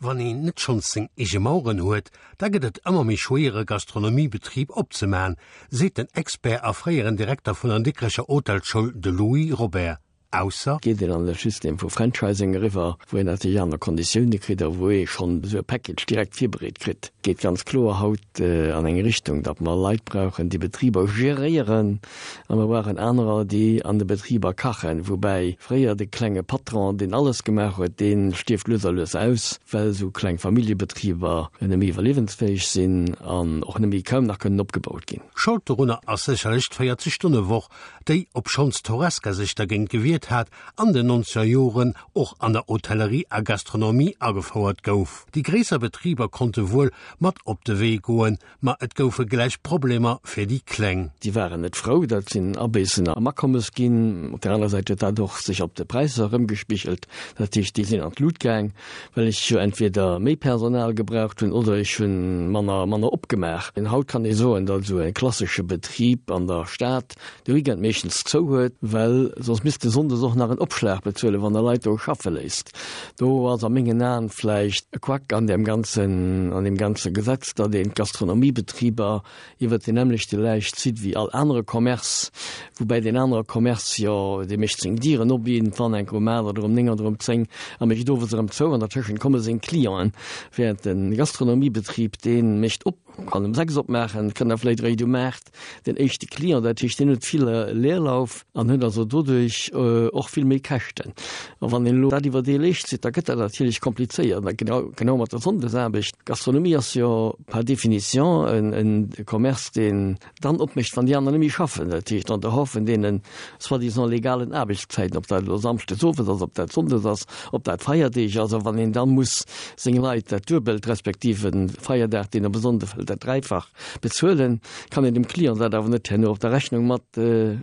Wann een net schonns seng eege Maueren huet, da gëtt et ëmmer méi schwéier e Gastronomiebetrib opzemaen, seet den Expert a fréieren Direkter vun der Dikrecher Hotelschoul, de Louis Robert. Ausser. Geet een an de System vu Franchising eriwwer, wou een natierlech aner Konditioune kritt a wou ee schonn esou e Package direkt virbereet kritt. Geet ganz kloer haut an eng Richtung, datt mer Leit brauchen, déi Betriber geréieren, A mer brauchen anerer, déi an de Betriber kachen. Woubäi fréier de klenge Patron, deen alles gemaach huet, dee stierft lues a lues aus, well esou kleng Familljebetriber net méi iwwerliewensfäeg sinn an och net méi, kaum nach kënnen opgebaut ginn. Schold dorunner ass sécherlech d'Véierzeg Stonne Woch, déi, obschonns d'Horesca sech dergéint gewiert hat, an den nonzeger Joren och an der Hotellerie a Gastronomie agefouert gouf. Déi gréisser Betriber konnte wuel mat op de Wee goen, Ma et goufe gläich Problemer fir déi Kleng. Déi waren net frou, dat sinn Abéissen am Akommes ginn. Op där aner Säit huet dat och sech op de Präisser erëmgespigelt. Dat heescht, déi sinn an d'Lut gaang, well ech jo entweder méi Personal gebraucht hunn oder ech hu manner, manner opgemaach. Haut kann ee soen, datt esou e klassesche Betrib an der Stad de Weekend meeschtens zou huet, well soss misst e sonndes och nach en Opschlag bezuelen, wann e Leit do schaffe léisst. Do ass a mengen Aen vläicht e Quack an deem ganzen, an deem ganze Gesetz, datt een d'Gastronomiebetriber iwwert deen nämmlechte Läich zitt wéi all anere Commerce, woubäi deen anere Commerce jo, dee mécht seng Dieren op iergendwann enk um 8 oder um 9 oder um 10 a mécht owes erëm zou an dertëschent komme seng Clienten, während de Gastronomiebetrib, dee mécht op, kann um 6 opmaachen, kënnt da vläicht eréischt um 8 den éischte Client, dat heescht, deen huet vill Leerlauf an huet also doduerch och vill méi Käschten. A wann een elo dat iwwer dee Leescht zitt, da gëtt dat natierlech komplizéiert. A genau, genau mat der Sonndesaarbecht. Gastronomie ass jo par définition en Commerce, deen dann opmécht, wann déi aner net méi schaffen. Dat heescht, en dehors vun deene soi-disant legalen Aarbechtszäiten, ob dat elo samschdes owes ass, ob dat sonndes ass, ob dat Feierdeeg ass, a wann een da muss seng Leit dat Duebelt, respektiv e Feierdag, deen op e Sonnde fält, dat Dräifach Bezuelen kann een dem Client dat awer net herno op der Rechnung mat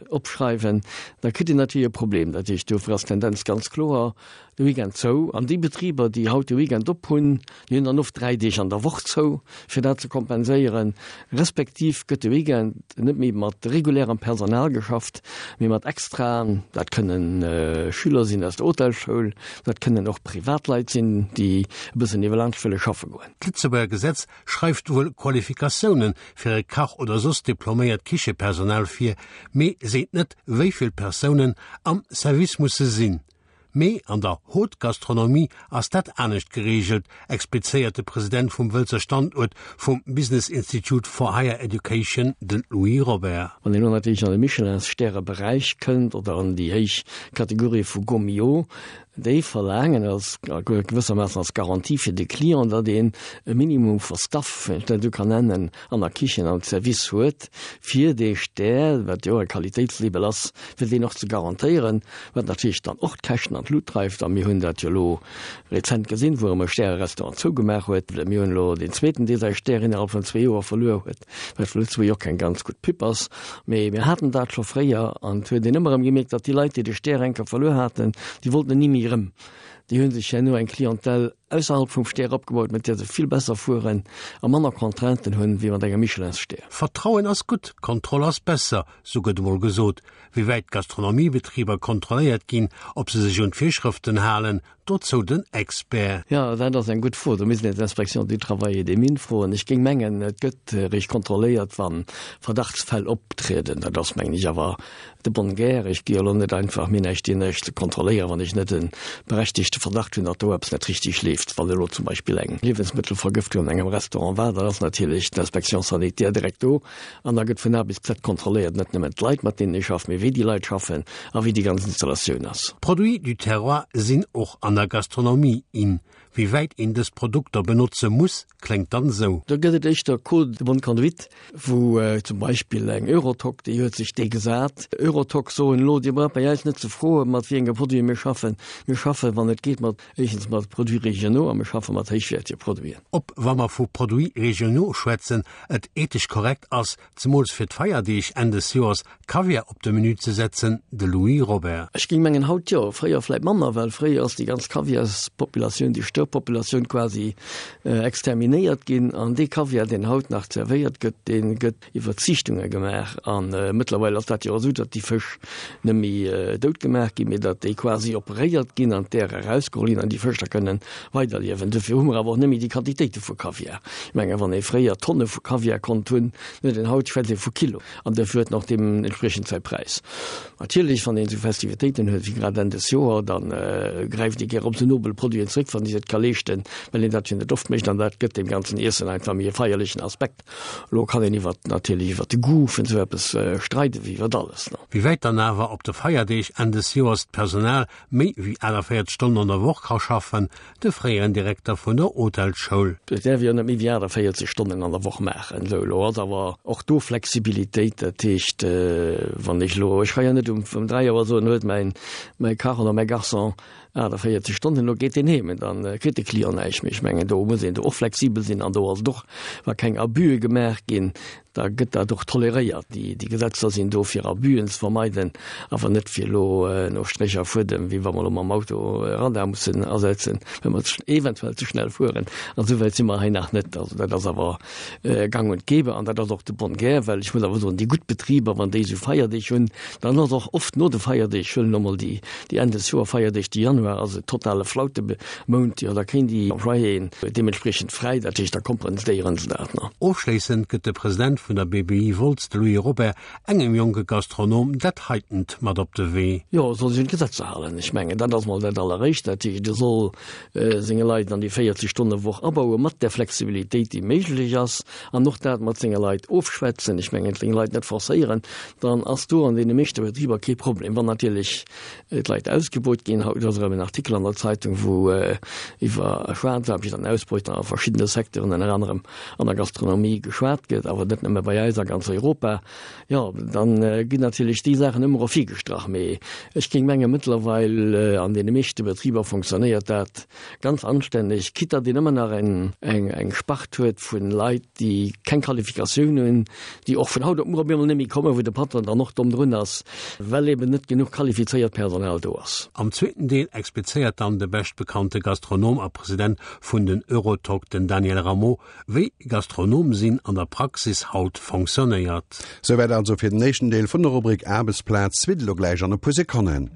opschreiwen, da kritt een natierlech e Problem. Dat heescht, dofir ass d'Tendenz ganz kloer, de Weekend zou. An déi Betriber, déi haut de Weekend op hunn, déi hunn dann oft 3 Deeg an der Woch zou, fir dat ze kompenséieren. Respektiv gëtt de Weekend net méi mat regulärem Personal geschafft, mee mat Extraen. Dat kënnen Schüler sinn aus der Hotelschoul, dat kënnen och Privatleit sinn, déi e bëssen iwwerlaanscht wëlle schaffe goen. D'Lëtzebuerger Gesetz schreift wuel Qualifikatioune fir e Kach oder soss diploméiert Kichepersonal vir, mee seet net, wéi vill Persounen am Service musse sinn. Mee an der Haute Gastronomie ass dat anescht gereegelt, explizéiert de President vum Wëlzer Standuert vum Business Institute for Higher Education, de Louis Robert. Wann een elo natierlech an de Michelin-Stäre-Beräich kënnt oder an déi héich Kategorie vu Gault-Millau, Déi verlaangen als gewëssermaassen als Garantie fir de Client, datt een e Minimum vu Staff, wann ech dat esou kann nennen, an der Kichen am Service huet, fir dee Stär, wat jo e Qualitéitslabel ass, fir deen och ze garantéieren, wat natierlech dann och d'Käschten an d'Lut dreift. A mir hunn dat jo elo rezent gesinn, wou erëm e Stärerestaurant zougemaach huet. Mir hunn elo deen zweeten, dee säi Stär innerhalb vun zwee Joer verluer huet. Wat fir Lëtzebuerg och keng ganz gutt Pub ass. Mee mir haten dat scho fréier an et huet een ëmmer erëm gemierkt, datt déi Leit, déi de Stär eng Kéier verluer haten, déi wollten en ni méi erëm. Déi hu sech herno eng Clientèle ausserhalb vum Stär opgebaut, mat där se vill besser fueren a manner Contrainten hunn, wéi mat engem Michelin-Stär. Vertrauen ass gutt, Kontroll ass besser, sou gëtt emol gesot. Wéi wäit d'Gastronomiebetriber kontrolléiert ginn, ob se sech un d'Virschrëften halen, Dozou den Expert. Jo, dat ass eng gutt Fro. Do misst een d'Inspection du Travail et des Mines froen. Ech géing mengen, et gëtt eréischt kontrolléiert, wa Verdachtsfäll optrieden. Dat ass, mengen ech, awer de bonne guerre. Ech gi jo elo net einfach mir näischt dir näischt ze kontrolléieren, wann ech net e berechtigte Verdacht hunn, datt do eppes net richtig leeft. Wann elo zum Beispill eng Liewensmëttelvergëftung an engem Restaurant war, dann ass natierlech d'Inspection sanitaire direkt do An da gëtt vun A bis Z kontrolléiert, net nëmmen d'Leit, mat deenen ee schafft, mee wéi déi Leit schaffen a wéi déi ganz Installatioun ass. Produits du terroir sinn och an der Gastronomie in. Wéi wäit een dës Produkter benotze muss, kléngt dann esou. Do gëtt et éischter Code de bonne conduite, wou zum Beispill eng Eurotoc, déi huet sech dee gesat. Eurotoc soen elo, Dir braucht bei eis net ze froen, mat wéi enge Produite mir schaffen. Mir schaffen, wann et geet, mat éischtens mat Produits régionaux a mir schaffe mat héichwäertege Produiten. Ob, wa mer vu Produits régionaux schwätzen, et ethesch korrekt ass, zemools fir d'Feierdeeg Enn des Joers, Kaviar op de Menü ze setzen, de Louis Robert. Ech géing mengen haut jo, fréier vläit manner, well fréier ass déi ganz Kaviarspopulatioun, déi stoung. Störpopulatioun quasi exterminéiert ginn. An dee Kaviar, deen haut nach zerwéiert gëtt, dee gëtt iwwer Ziichtunge gemaach. A mëttlerweil ass dat jo och esou, datt déi Fësch net méi dout gemaach ginn, mee datt déi quasi operéiert ginn an d'Äer erausgeholl ginn an déi Fësch da kënnen weiderliewen. Dofir hu mer awer och net méi déi Quantitéite vu Kaviar. Ech mengen, wann ee fréier Tonne vu Kaviar konnt hunn, huet een haut, schwätzt ee vu Kilo. An dofir huet en och deementspriechend säi Präis. Natierlech, wann een esou Festivitéiten huet wéi grad Enn des Joer, da gräift ee gär op esou nobel Produiten zréck, wann ee sech et ka leeschten, well een dat jo net oft mécht. An dat gëtt deem ganzen Iessen einfach méi e feierlechen Aspekt. Elo kann een iwwert, natierlech iwwert de Goût vun esou eppes streiden, wéi iwwert alles. Wéi wäit dann awer op de Feierdeeg Enn des Joers d'Personal méi wéi 48 Stonnen an der Woch ka schaffen, de fréieren Direkter vun der Hotelsschoul. Et däerf jo net méi wéi 48 Stonnen an der Woch maachen. Esou, elo ass awer och do Flexibilitéit. Dat heescht, wann ech elo, ech ka jo net um 3 Auer soen, huet mäin, mäi Kach oder mäi Garçon 48 Stonnen, elo geet deen heem, dann kritt de Client näischt méi. Ech mengen, do muss een do och flexibel sinn an do ass et och, wa keng Abüe gemaach ginn, da gëtt dat och toleréiert. Déi Gesetzer sinn do fir Abüen ze vermeiden, awer net fir elo no Stréch a Fuedem, wéi wa mer elo mam Auto e Radar mussen asetzen, well mer eventuell ze schnell fueren. An esou wäit si mer hei nach net. Also dat ass awer gang und gäbe an dat ass och de bonne guerre, well ech muss awer soen, déi gutt Betriber, wann déi esou Feierdeeg hunn, dann ass och oft no de Feierdeeg, ech huelen elo mol déi Enn des Joer-Feierdeeg, de Januar ass e totale Flaute, Mount, jo da kréien déi Employéen deementspriechend fräi, dat heescht da kompenséieren se dat. Ofschléissend gëtt de President vun der BBI Wolz, de Louis Robert, engem jonke Gastronom dat heitent mat op de Wee. Jo, e soll sech un d'Gesetzer halen. Ech mengen, dat ass mol dat Alleréischt. Dat heescht, e soll senge Leit an déi 40 Stonne Woch abauen, mat där Flexibilitéit, déi méiglech ass, an och dat mat senge Leit ofschwätzen. Ech mengen, seng Leit net forcéieren, dann ass do an deene meeschte Betriber kee Problem. Wann natierlech d'Leit ausgebeut ginn. Haut ass erëm en Artikel an der Zeitung, wou iwwer Schwaarzaarbecht an Ausbeutung a verschiddene Secteuren, ënner anerem an der Gastronomie, geschwat gëtt, awer net nëmme bei eis, a ganz Europa. Jo, dann ginn natierlech déi Saachen ëmmer ervirgestrach. Mee ech géing mengen, mëttlerweil an deene meeschte Betriber fonctionnéiert dat ganz anstänneg, quitte datt een ëmmer nach eng Spart huet vu Leit, déi keng Qualifikatioun hunn, déi och vun haut op muer op eemol net méi kommen, wou de Patron dann och domm drun ass, well eben net genuch qualifizéiert Personal do ass. Am zweeten Deel explizéiert dann de beschtbekannte Gastronom a President vun den Eurotalk, den Daniel Rameau, wéi Gastronom sinn an der Praxis haut fonctionnéiert. Souwäit also fir den éischten Deel vun der Rubrik Aarbechtsplaz. Suite elo gläich an e puer Sekonnen.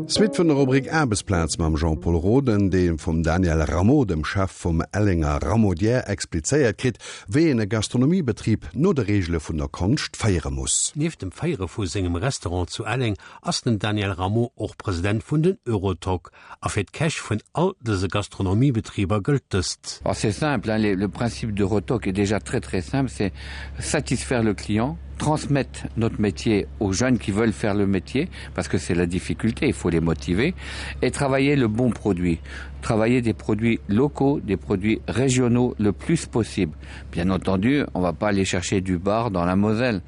Suite vun der Rubrik Aarbechtsplaz mam Jean-Pol Roden, dee vum Daniel Rameau, dem Chef vum Ellenger Ramaudière, explizéiert kritt, wéi een e Gastronomiebetrib no de Reegele vun der Konscht féiere muss. Nieft dem Féiere vu sengem Restaurant zu Elleng ass den Daniel Rameau och President vun den Eurotoc. A fir d'Käch vun all dëse Gastronomiebetriber gëllt dëst. Ah c'est simple, hein, le principe d'Eurotoc est déjà très très simple, c'est satisfaire le client, transmettre notre métier aux jeunes qui veulent faire le métier, parce que c'est la difficulté, il faut les motiver, et travailler le bon produit travailler des produits locaux, des produits régionaux le plus possible. Bien entendu, on va pas aller chercher du bar dans la Moselle,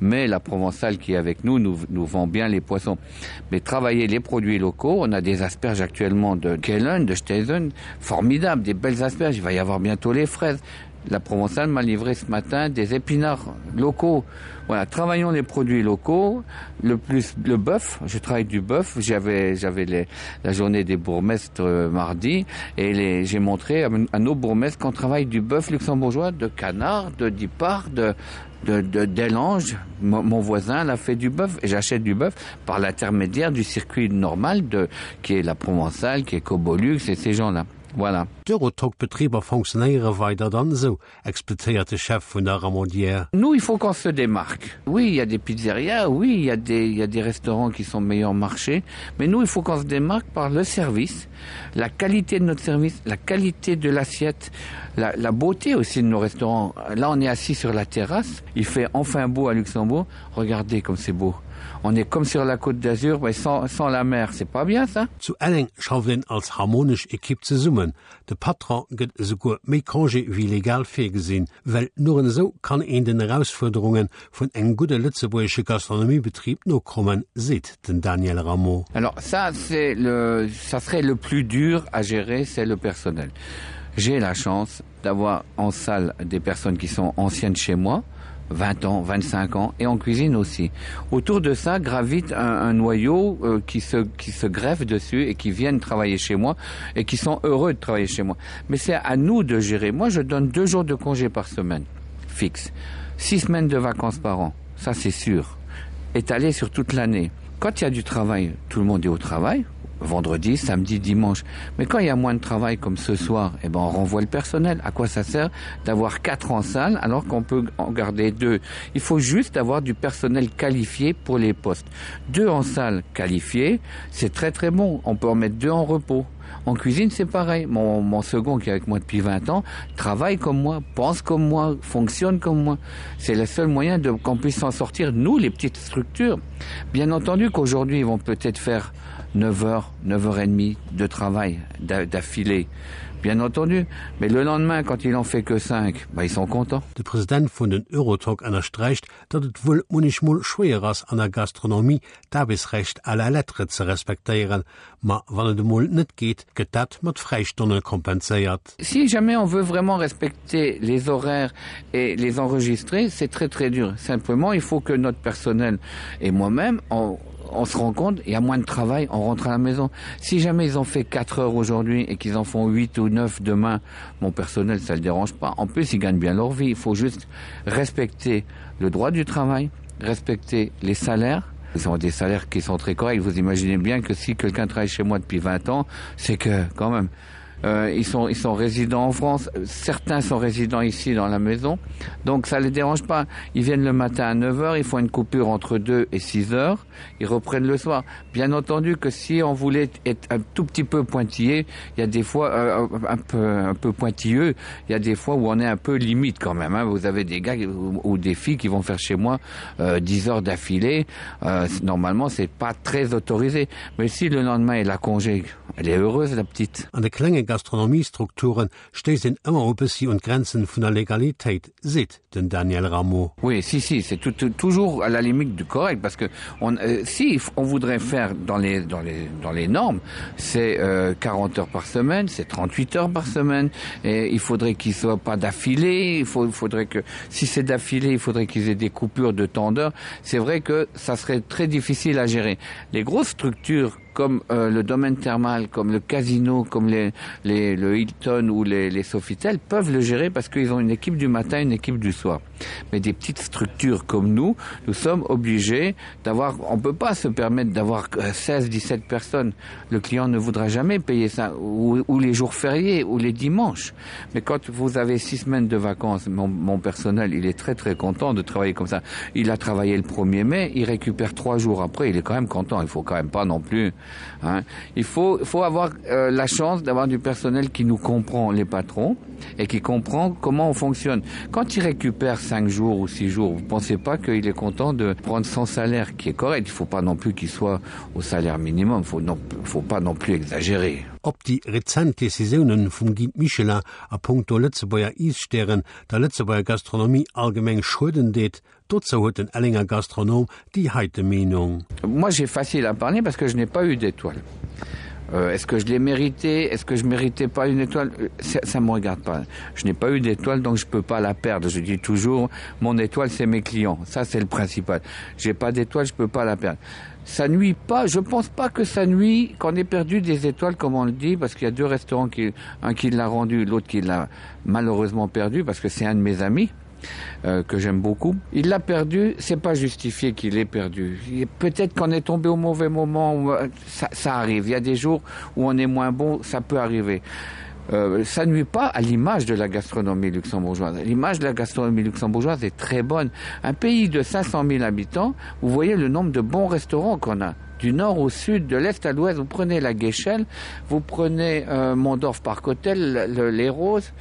mais la Provençale qui est avec nous nous, nous vend bien les poissons. Mais travailler les produits locaux, on a des asperges actuellement de Kellen, de Steisen, formidables, des belles asperges, il va y avoir bientôt les fraises. La Provençale m'a livré ce matin des épinards locaux. Voilà, travaillons les produits locaux, le plus le bœuf, je travaille du bœuf, j'avais j'avais la journée des bourgmestres euh, mardi et j'ai montré à, à nos bourgmestres qu'on travaille du bœuf luxembourgeois, de canard, de dipart, de de, de d'Elange, mon, mon voisin l'a fait du bœuf et j'achète du bœuf par l'intermédiaire du circuit normal de qui est la Provençale, qui est Cobolux et ces gens-là. Voilà. D'Eurotoc-Betriber fonctionnéiere weider dann esou, explizéiert de Chef vun der Ramaudière. Nous, il faut qu'on se démarque. Oui, il y a des pizzerias, oui, il y a des, il y a des restaurants qui sont meilleurs marché, mais nous, il faut qu'on se démarque par le service, la qualité de notre service, la qualité de l'assiette, la, la beauté aussi de nos restaurants. Là, on est assis sur la terrasse, il fait enfin beau à Luxembourg, regardez comme c'est beau. On est comme sur la Côte d'Azur mais sans, sans la mer, c'est pas bien ça? Zu Elleng schafft een als harmonesch Ekipp zesummen. De Patron gëtt esouguer méi Congé wéi legal virgesinn, well nuren esou kann een den Erausfuerderunge vun engem gudde lëtzebuergesche Gastronomiebetrib nokommen, seet den Daniel Rameau. Alors ça c'est le ça serait le plus dur à gérer, c'est le personnel. J'ai la chance d'avoir en salle des personnes qui sont anciennes chez moi, 20 ans, 25 ans et en cuisine aussi. Autour de ça gravite un, un noyau euh, qui, se, qui se greffe dessus et qui viennent travailler chez moi et qui sont heureux de travailler chez moi. Mais c'est à nous de gérer. Moi je donne deux jours de congé par semaine fixe. Six semaines de vacances par an, ça c'est sûr, étalé sur toute l'année. Quand il y a du travail, tout le monde est au travail, vendredi, samedi, dimanche. Mais quand il y a moins de travail comme ce soir, eh ben on renvoie le personnel. À quoi ça sert d'avoir quatre en salle alors qu'on peut en garder deux Il faut juste avoir du personnel qualifié pour les postes. Deux en salle qualifiés, c'est très très bon. On peut en mettre deux en repos. En cuisine, c'est pareil. Mon, mon second qui est avec moi depuis 20 ans travaille comme moi, pense comme moi, fonctionne comme moi. C'est le seul moyen qu'on puisse s'en sortir, nous, les petites structures. Bien entendu qu'aujourd'hui, ils vont peut-être faire 9h, 9h30 de travail d'affilée. Bien entendu, mais le lendemain, quand il en fait que 5, bah, ils sont contents. De President vun den Eurotalk ënnersträicht, datt et wuel munnechmol schwéier ass an der Gastronomie d'Aarbechtsrecht à la lettre ze respektéieren, ma wann et emol net geet, gëtt dat mat Fräistonne kompenséiert. Si jamais on veut vraiment respecter les horaires et les enregistrer, c'est très très dur. Simplement, il faut que notre personnel et moi-même on on se rend compte, il y a moins de travail, on rentre à la maison. Si jamais ils ont fait 4 heures aujourd'hui et qu'ils en font 8 ou 9 demain, mon personnel, ça ne le dérange pas. En plus, ils gagnent bien leur vie. Il faut juste respecter le droit du travail, respecter les salaires. Ils ont des salaires qui sont très corrects. Vous imaginez bien que si quelqu'un travaille chez moi depuis 20 ans, c'est que quand même euh, ils sont ils sont résidents en France certains sont résidents ici dans la maison donc ça les dérange pas ils viennent le matin à 9 heures ils font une coupure entre 2 et 6 heures ils reprennent le soir bien entendu que si on voulait être un tout petit peu pointillé il y a des fois euh, un peu un peu pointilleux il y a des fois où on est un peu limite quand même hein. vous avez des gars ou, ou des filles qui vont faire chez moi euh, 10 heures d'affilée euh, normalement c'est pas très autorisé mais si le lendemain il a congé elle est heureuse la petite An de klenge Gastronomiestrukture stéisst een ëmmer e bëssi un d'Grenzen vun der Legalitéit, seet den Daniel Rameau. Oui, si, si, c'est tout, tout, toujours à la limite du correct parce que on, euh, si on voudrait faire dans les, dans les, dans les normes, c'est euh, 40 heures par semaine, c'est 38 heures par semaine et il faudrait qu'ils soient pas d'affilée, il faut, il faudrait que si c'est d'affilée, il faudrait qu'ils aient des coupures de temps d'heure. C'est vrai que ça serait très difficile à gérer. Les grosses structures comme euh, le domaine thermal, comme le casino, comme les, les, le Hilton ou les, les Sofitel peuvent le gérer parce qu'ils ont une équipe du matin, une équipe du soir. Mais des petites structures comme nous, nous sommes obligés d'avoir on peut pas se permettre d'avoir 16 17 euh, personnes. Le client ne voudra jamais payer ça ou, ou les jours fériés ou les dimanches. Mais quand vous avez six semaines de vacances, mon, mon personnel il est très très content de travailler comme ça. Il a travaillé le 1er mai, il récupère trois jours après, il est quand même content, il faut quand même pas non plus Hein. Il faut, faut avoir euh, la chance d'avoir du personnel qui nous comprend les patrons et qui comprend comment on fonctionne. Quand il récupère cinq jours ou six jours, vous pensez pas qu'il est content de prendre son salaire qui est correct. Il faut pas non plus qu'il soit au salaire minimum, faut non, faut pas non plus exagérer. Ob déi rezent Decisiounen vum Guide Michelin a punkto Lëtzebuerger Iesstären der Lëtzebuerger Gastronomie allgemeng schueden deet, dozou huet den Ellenger Gastronom déi heite Meenung. Moi j'ai facile à parler parce que je n'ai pas eu d'étoile. Euh, est-ce que je l'ai mérité est-ce que je méritais pas une étoile euh, ça, ça me regarde pas je n'ai pas eu d'étoile donc je peux pas la perdre je dis toujours mon étoile c'est mes clients ça c'est le principal j'ai pas d'étoile je peux pas la perdre ça nuit pas je pense pas que ça nuit qu'on ait perdu des étoiles comme on le dit parce qu'il y a deux restaurants qui un qui l'a rendu l'autre qui l'a malheureusement perdu parce que c'est un de mes amis euh, que j'aime beaucoup. Il l'a perdu, c'est pas justifié qu'il ait perdu. Peut-être qu'on est tombé au mauvais moment, euh, ça, ça arrive. Il y a des jours où on est moins bon, ça peut arriver. Euh, ça nuit pas à l'image de la gastronomie luxembourgeoise. L'image de la gastronomie luxembourgeoise est très bonne. Un pays de 500 000 habitants, vous voyez le nombre de bons restaurants qu'on a du nord au sud, de l'est à l'ouest, vous prenez la Guéchelle, vous prenez euh, Mondorf Park Hotel, le, les Roses.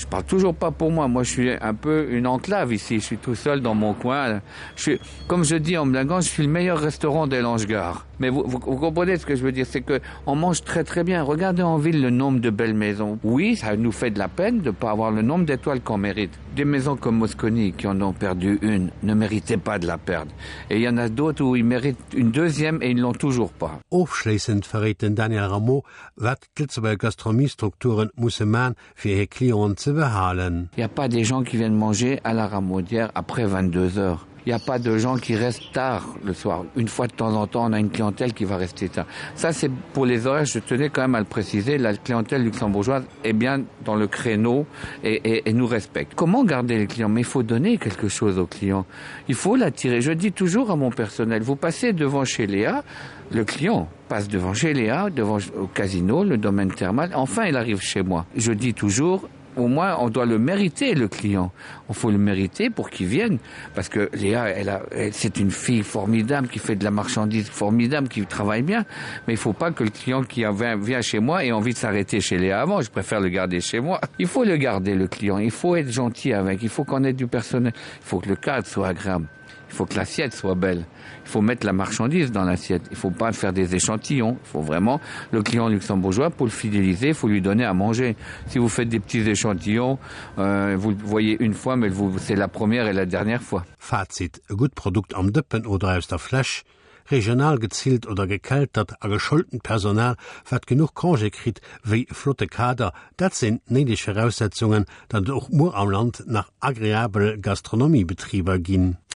Je parle toujours pas pour moi. Moi, je suis un peu une enclave ici. Je suis tout seul dans mon coin. Je suis, comme je dis en blaguant, je suis le meilleur restaurant d'Elange-Gare. Mais vous, vous, vous comprenez ce que je veux dire, c'est que on mange très très bien. Regardez en ville le nombre de belles maisons. Oui, ça nous fait de la peine de pas avoir le nombre d'étoiles qu'on mérite. Des maisons comme Mosconi qui en ont perdu une ne méritaient pas de la perdre. Et il y en a d'autres où ils méritent une deuxième et ils l'ont toujours pas. Ofschléissend verréit den Daniel Rameau, wat d'Lëtzebuerger Gastronomiestrukture musse man, fir hir Clienten ze behalen. Il n'y a pas des gens qui viennent manger à la Ramaudière après 22 heures. Il n'y a pas de gens qui restent tard le soir. Une fois de temps en temps, on a une clientèle qui va rester tard. Ça, c'est pour les horaires, je tenais quand même à le préciser, la clientèle luxembourgeoise est bien dans le créneau et, et, et nous respecte. Comment garder les clients Mais il faut donner quelque chose aux clients. Il faut l'attirer. Je dis toujours à mon personnel, vous passez devant chez Léa, le client passe devant chez Léa, devant au casino, le domaine thermal, enfin il arrive chez moi. Je dis toujours, au moins on doit le mériter le client on faut le mériter pour qu'il vienne parce que Léa elle a c'est une fille formidable qui fait de la marchandise formidable qui travaille bien mais il faut pas que le client qui avait vient chez moi ait envie de s'arrêter chez Léa avant je préfère le garder chez moi il faut le garder le client il faut être gentil avec il faut qu'on ait du personnel il faut que le cadre soit agréable il faut que l'assiette soit belle il faut mettre la marchandise dans l'assiette il faut pas faire des échantillons il faut vraiment le client luxembourgeois pour le fidéliser il faut lui donner à manger si vous faites des petits échantillons euh, vous le voyez une fois mais vous c'est la première et la dernière fois Fazit e gutt Produkt am Dëppen oder aus der Fläsch, regional gezillt oder gekeltert a geschoultent Personal, wat genuch Congé kritt, wéi e flotte Kader, dat sinn d'néideg Viraussetzungen, datt et och muer am Land nach agreabel Gastronomiebetriber ginn.